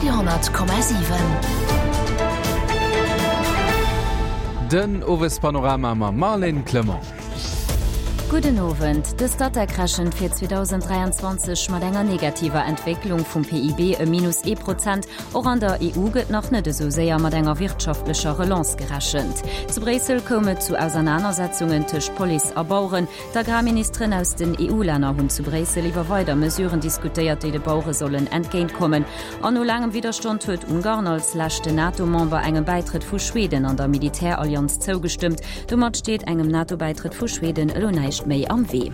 Radio 10,7. Den Owespanorama mam Marlène Clement. Gudden Owend. De Statec rechent fir 2023 mat enger negativer Entwécklung vum PIB ëm minus ee Prozent. Och an der EU gëtt nach net esou séier mat enger wirtschaftlecher Relance gerechent. Zu Bréissel koum et zu Ausernanersetzungen tëscht Police a Baueren. D'Agrarministeren aus den EU-Länner hunn zu Bréissel iwwer weider Mesuren diskutéiert, déi de Bauere sollen entgéintkommen. An no laangem Widderstand huet Ungarn als leschten NATO-Member engem Bäitrëtt vu Schweden an der Militärallianz zougestëmmt. Domat steet engem NATO-Bäitrëtt vu Schweden elo näischt méi am Wee.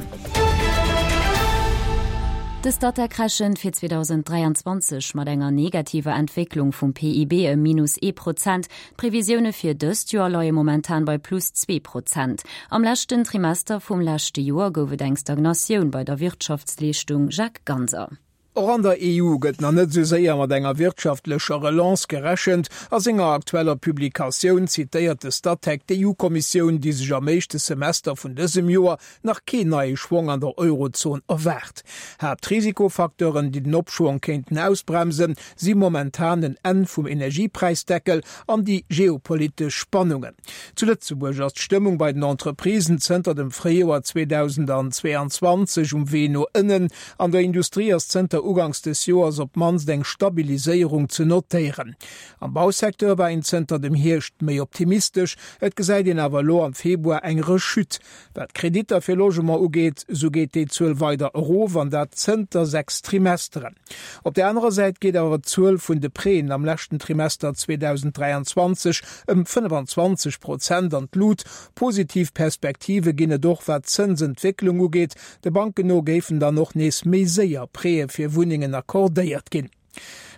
De Statec rechent fir 2023 mat enger negativer Entwécklung vum PIB ëm minus ee Prozent. D'Previsioune fir dëst Joer leie momentan bei plus 2%. Am leschten Trimester vum leschte Joer gouf et eng Stagnatioun bei der Wirtschaftsleeschtung, Jacques Ganser. Och an der EU gëtt nach net esou séier mat enger wirtschaftlecher Relance gerechent. A senger aktueller Publikatioun zitéiert de Statec d'EU-Kommissioun, déi sech am éischte Semester vun dësem Joer nach keen neie Schwong an der Eurozon erwaart. Haaptrisikofacteuren, déi den Opschwong kéinten ausbremsen, si momentan en Enn vum Energiepräisdeckel an déi geopolitesch Spannungen. Zu Lëtzebuerg ass d'Stëmmung bei den Entreprisen zënter dem Fréijoer 2022 um Wee no ënnen. An der Industrie ass zënter uganks des Joers op d'mannst eng Stabiliséierung ze notéieren. Am Bausecteur war een zënter dem Hierscht méi optimistesch, et gesäit een awer elo am Februar eng Rechute. Wat d'Kreditter fir Logement ugeet, esou geet déi Zuel weider erof, an dat zënter 6 Trimesteren. Op der anerer Säit geet awer d'Zuel vun de Prêten am leschten Trimester 2023 ëm 25 Prozent an d'Lut. Positiv Perspektive ginn et och wat d'Zënsentwécklung ugeet. De Banken no géifen dann och nees méi séier Prêtë fir Wunnengen accordéiert ginn.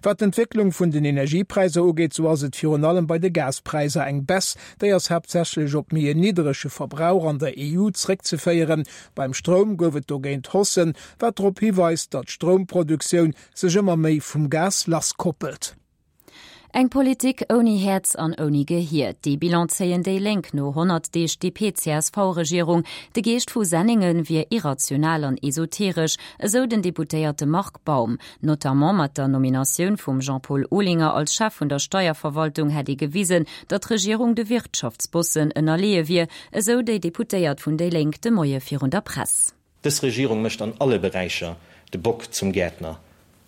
Wat d'Entwécklung vun den Energiepräisser ugeet, sou ass et virun allem bei de Gaspräisser eng Baisse. Déi ass haaptsächlech op méi en nidderege Verbrauch an der EU zréckzeféieren. Beim Stroum gouf et dogéint Haussen, wat drop hiweist, datt d'Stroumproduktioun sech ëmmer méi vum Gas lasskoppelt. Eng Politik ouni Häerz an ouni Gehier, dee Bilan zéien déi Lénk no 100 Deeg DP-CSV-Regierung. De Geescht vu Senningen wier irrational an esoteresch, esou den Deputéierte Marc Baum. Notamment mat der Nominatioun vum Jean-Paul Olinger als Chef vun der Steierverwaltung hätt ee gewisen, datt d'Regierung de Wirtschaftsbossen ënnerleeë wier, esou déi Deputéiert vun déi Lénk de Moie virun der Press. Dës Regierung mécht an alle Beräicher de Bock zum Gäertner,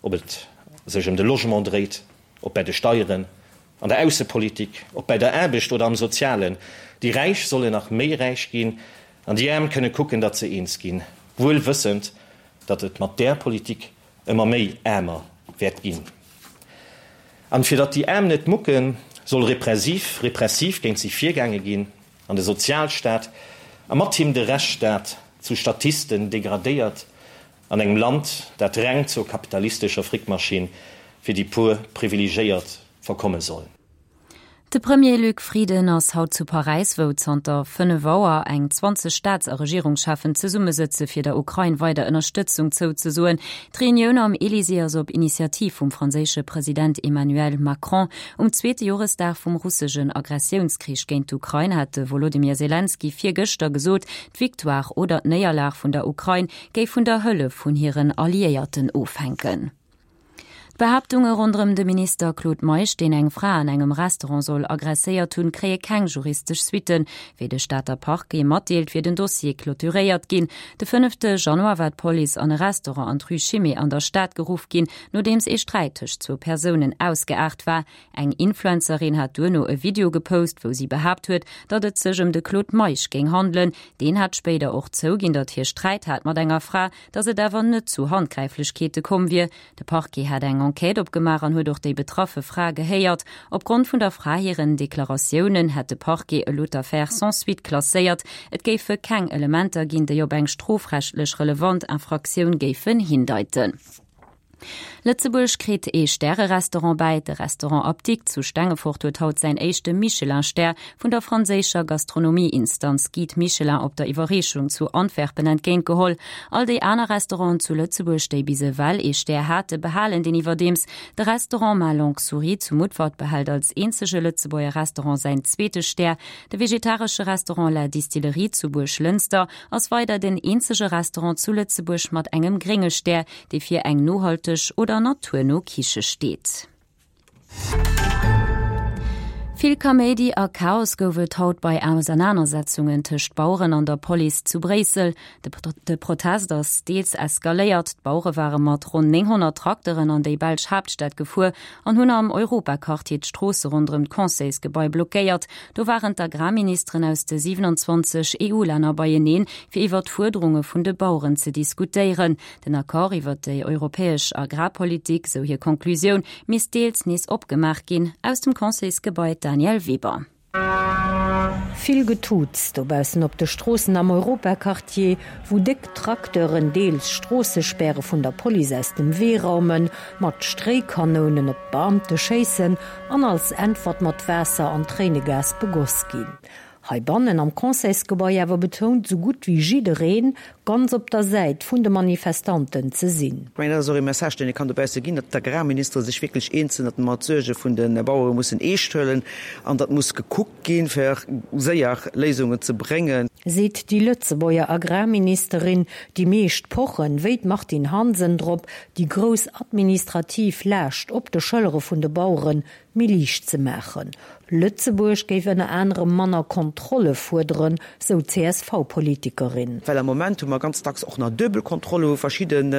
ob et sech ëm de Logement dréit, ob bäi de Steieren, an der Aussepolitik, ob bäi der Aarbecht oder am Sozialen. Déi Räich sollen nach méi räich ginn an déi Aarm kënne kucken, datt se eens ginn, wuel wëssend, datt et mat där Politik ëmmer méi aarmer wäert ginn. An fir datt déi Aarm net mucken, soll repressiv, repressiv géint si virgaange ginn. An de Sozialstaat, a mat him de Rechtsstaat, zu Statisten degradéiert an engem Land, dat reng zur kapitalistescher Frickmaschinn fir déi puer Privilegéiert verkomme soll. De Premier Luc Frieden ass haut zu Paräis, wou zanter 5 Auer eng 20 Staats a Regierungscheffen zesummesëtze fir der Ukrain weider Ënnerstëtzung zouzesoen. D'Reunioun am Elysée ass op Initiativ vum franséische President Emmanuel Macron Um zweete Joresdag vum russegen Agressiounskrich géint d'Ukrain hat de Wolodymyr Selenskyj virgëschter gesot, d'Victoire oder d'Néierlag vun der Ukrain géif vun der Hëllef vun hiren Alliéierten ofhänken. D'Behaaptunge ronderëm de Minister Claude Meisch, deen eng Fra an engem Restaurant soll aggresséiert hunn, kréie keng juristesch Suitten. Wéi de Stater Parquet matdeelt, wier den Dossier clôturéiert ginn. De fënnefte Januar war d'Police an e Restaurant an d'Rue Chimay an der Stad geruff ginn, Nodeems ee Sträit tëscht zwou Persounen ausgeaart war. Eng Influencerin hat duerno e Video gepost, wou si behaapt huet, datt et sech ëm de Claude Meisch géing handelen. Deen hat spéider och zouginn, datt hie Sträit hat mat enger Fra, datt et awer net zu Handgräiflechkeete komm wier. De Parquet hat eng Enquête opgemaach an huet och déi betraffe Fra gehéiert. Opgrond vun der Fra hiren Deklaratiounen hätt de Parquet elo d'Affär sans suite klasséiert. Et géife keng Elementer ginn, déi op eng strofrechtlech relevant Infraktioun géifen hindeiten. Lëtzebuerg kritt ee Stärerestaurant bäi. De Restaurant Apdikt zu Stengefort huet haut säin éischte Michelin-Stär vun der franséischer Gastronomie-Instanz Guide Michelin op der Iwwerreechung zu Antwerpen entgéint geholl. All déi aner Restauranten zu Lëtzebuerg, déi bis ewell ee Stär hate, behalen deen iwwerdeems. De Restaurant Ma Longue Souris zu Mutfert behält als eenzege Lëtzebuerger Restaurant säin zweete Stär. De vegetaresche Restaurant La Distillerie zu Buerglënster ass weider den eenzege Restaurant zu Lëtzebuerg mat engem grénge Stär, dee fir eng nohalteg oder naturno Kiche steet. Vill Kaméidi a Chaos gouf et haut bei Ausernanersetzungen tëscht Baueren an der Police zu Bréissel. De Protest ass deels eskaléiert. D'Bauere ware mat ronn 900 Trakteren an déi belsch Haaptstad gefuer an hunn am Europaquartier d'Stroosse ronderëm d'Conseilsgebai blockéiert. Do waren d'Agrarministeren aus de 27 EU-Länner beieneen, fir iwwer d'Fuerderunge vun de Baueren ze diskutéieren. Den Accord iwwer déi europäesch Agrarpolitik, sou hir Konklusioun, misst deels nees opgemaach ginn. Aus dem Conseilsgebai d'Danièle Weber. Vill Getuuts dobaussen op de Stroossen am Europaquartier, wou déck Tracteuren deels Stroossespäre vun der Police aus dem Wee raumen, mat Stréikanounen op d'Beamte schéissen an als Äntwert mat Waasser an Tréinegas begoss ginn. Heibannen am Conseilsgebai awer betount sou gutt wéi jiddereen, ganz op der Säit vun de Manifestanten ze sinn. Ech mengen, dat ass och ee Message, deen ee kann dobausse ginn, datt d'Agrarministere sech wierklech eens sinn, datt mer d'Suerge vun de Bauere mussen eescht huelen an datt muss gekuckt ginn, fir séier Léisungen ze bréngen. Seet déi Lëtzebuerger Agrarministerin. Déi meescht pochen, wéi d'Martine Hansen, drop, déi grouss administrativ Laascht op de Schëllere vun de Baueren méi liicht ze maachen. Lëtzebuerg géif ënner anerem manner Kontrolle fuerderen, sou d'CSV-Politikerin. Well am Moment hu mer ganz dacks och nach duebel Kontrolle, wou verschidden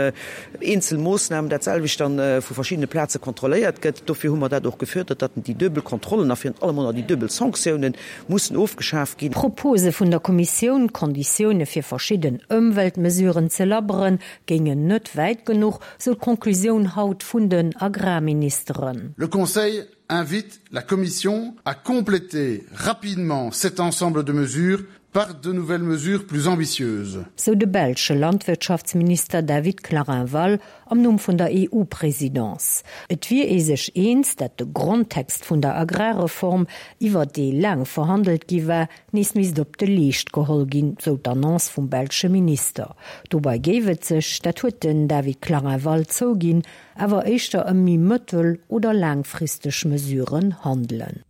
eenzel Moossnamen dat selwecht dann vu verschiddene Plaze kontrolléiert gëtt. Dofir hu mer dat och gefuerdert, datt déi duebel Kontrollen a virun allem och nach déi duebel Sanktiounen mussen ofgeschaf ginn. D'Propose vun der Kommissioun, d'Konditioune fir verschidden Ëmweltmesuren ze labberen, géingen net wäit genuch, sou d'Conclusioun haut vun den Agrarministeren. Le Conseil invite la Commission à compléter rapidement cet ensemble de mesures par de nouvelles mesures plus ambitieuses. Sou de belsche Landwirtschaftsminister David Clarinval am Numm vun der EU-Presidence. Et wier ee sech eens, dat de Grondtext vun der Agrarreform, iwwer dee laang verhandelt gi war, nees misst op de Leescht geholl ginn, sou d'Annonce vum belsche Minister. Dobei géif et sech, dat huet den David Clarinval zouginn, awer éischter ëm méi mëttel oder laangfristeg Mesuren handelen.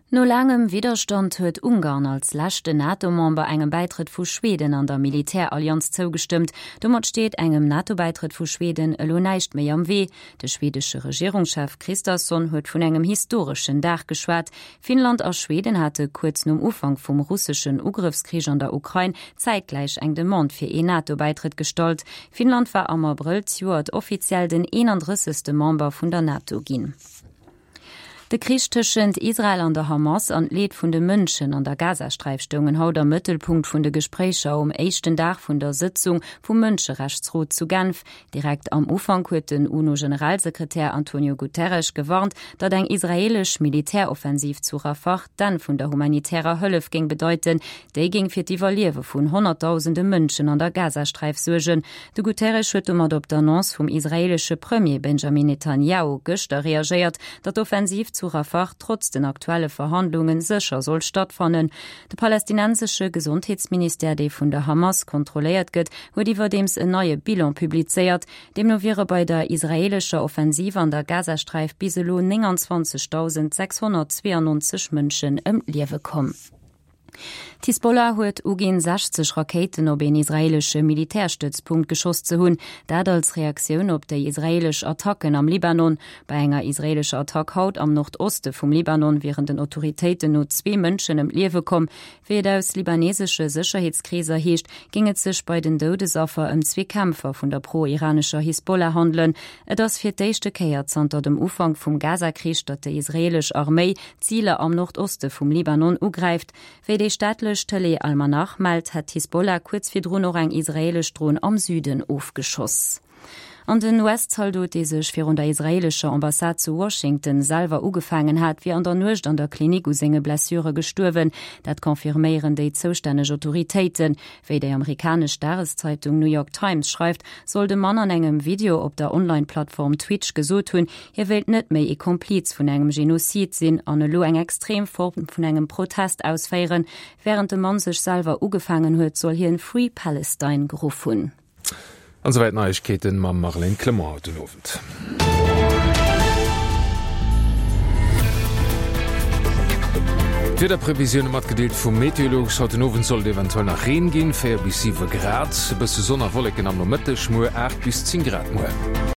No laangem Widderstand huet Ungarn als leschten NATO-Member engem Bäitrëtt vu Schweden an der Militärallianz zougestëmmt. Domat steet engem NATO-Bäitrëtt vu Schweden elo näischt méi am Wee. De schwedesche Regierungschef Kristersson huet vun engem historeschen Dag geschwat. Finnland a Schweden hate kuerz nom Ufank vum russeschen Ugrëffskrich an der Ukrain zäitgläich eng Demande fir een NATO-Bäitrëtt gestallt. Finnland war am Abrëll zejoert offiziell den 31. Member vun der NATO ginn. De Krich tëschent Israel an der Hamas an d'Leed vun de Mënschen an der Gazasträif stoungen haut am Mëttelpunkt vun de Gespréicher um éischten Dag vun der Sëtzung vum Mënscherechtsrot zu Genf. Direkt am Ufank huet den UNO-Generalsekretär Antonio Guterres gewarnt, datt eng israeelesch Militäroffensiv zu Rafah d'Enn vun der humanitärer Hëllef géing bedeiten. Déi géing fir d'Iwwerliewe vun honnertdausende Mënschen an der Gazasträif suergen. De Guterres huet domat op d'Annonce vum israeelesche Premier Benjamin Netanjahu gëschter reagéiert, datt d'Offensiv zu Rafah trotz den aktuelle Verhandlunge sécher soll stattfannen. De palästinensesche Gesondheetsministère, dee vun der Hamas kontrolléiert gëtt, huet iwwerdeems en neie Bilan publizéiert. Deemno wiere bei der israeelescher Offensiv an der Gazasträif bis elo 29.692 Mënschen ëm d'Liewe komm. D'Hisbollah huet uginn, 60 Rakéiten op een israeelesche Militärstëtzpunkt geschoss ze hunn. Dat als Reaktioun op déi israeelesch Attacken am Libanon. Bei enger israeelescher Attack haut am Nordoste vum Libanon wieren den Autoritéiten no zwee Mënschen ëm d'Liewe komm. Wéi et aus libanesesche Sécherheetskreeser heescht, géing et sech bei den Doudesaffer ëm zwee Kämpfer vun der pro-iranescher Hisbollah handelen. Et ass fir d'éischte Kéier zanter dem Ufank vum Gaza-Krich, datt déi israeelesch Arméi Ziler am Nordoste vum Libanon ugräift. Wéi déi staatlech Tëlee Al-Manar mellt, hätt d'Hisbollah kuerz virdrun och eng israeelesch Dron am Süden ofgeschoss. An den US-Zaldot, dee sech virun der israeelescher Ambassade zu Washington selwer ugefaangen hat, wier an der Nuecht an der Klinik u senge Blessure gestuerwen. Dat confirméieren déi zoustänneg Autoritéiten. Wéi déi amerikanesch Dageszeitung New York Times schreift, soll de Mann an engem Video op der Online-Plattform Twitch gesot hunn, hie wéilt net méi ee Kompliz vun engem Genozid sinn an elo eng extrem Form vun engem Protest ausféieren. Wärend de Mann sech selwer ugefaangen huet, soll hien Free Palestine geruff hunn. An souwäit d'Neiegkeeten mam Marlène Clement haut den Owend. D'Wiederprevisioune matgedeelt vum Meteolux, Haut den Owend soll et eventuell nach Reen ginn, 4 bis 7 Grad, e bësse Sonn a Wolleken am Nomëtteg, muer 8 bis 10 Grad muer.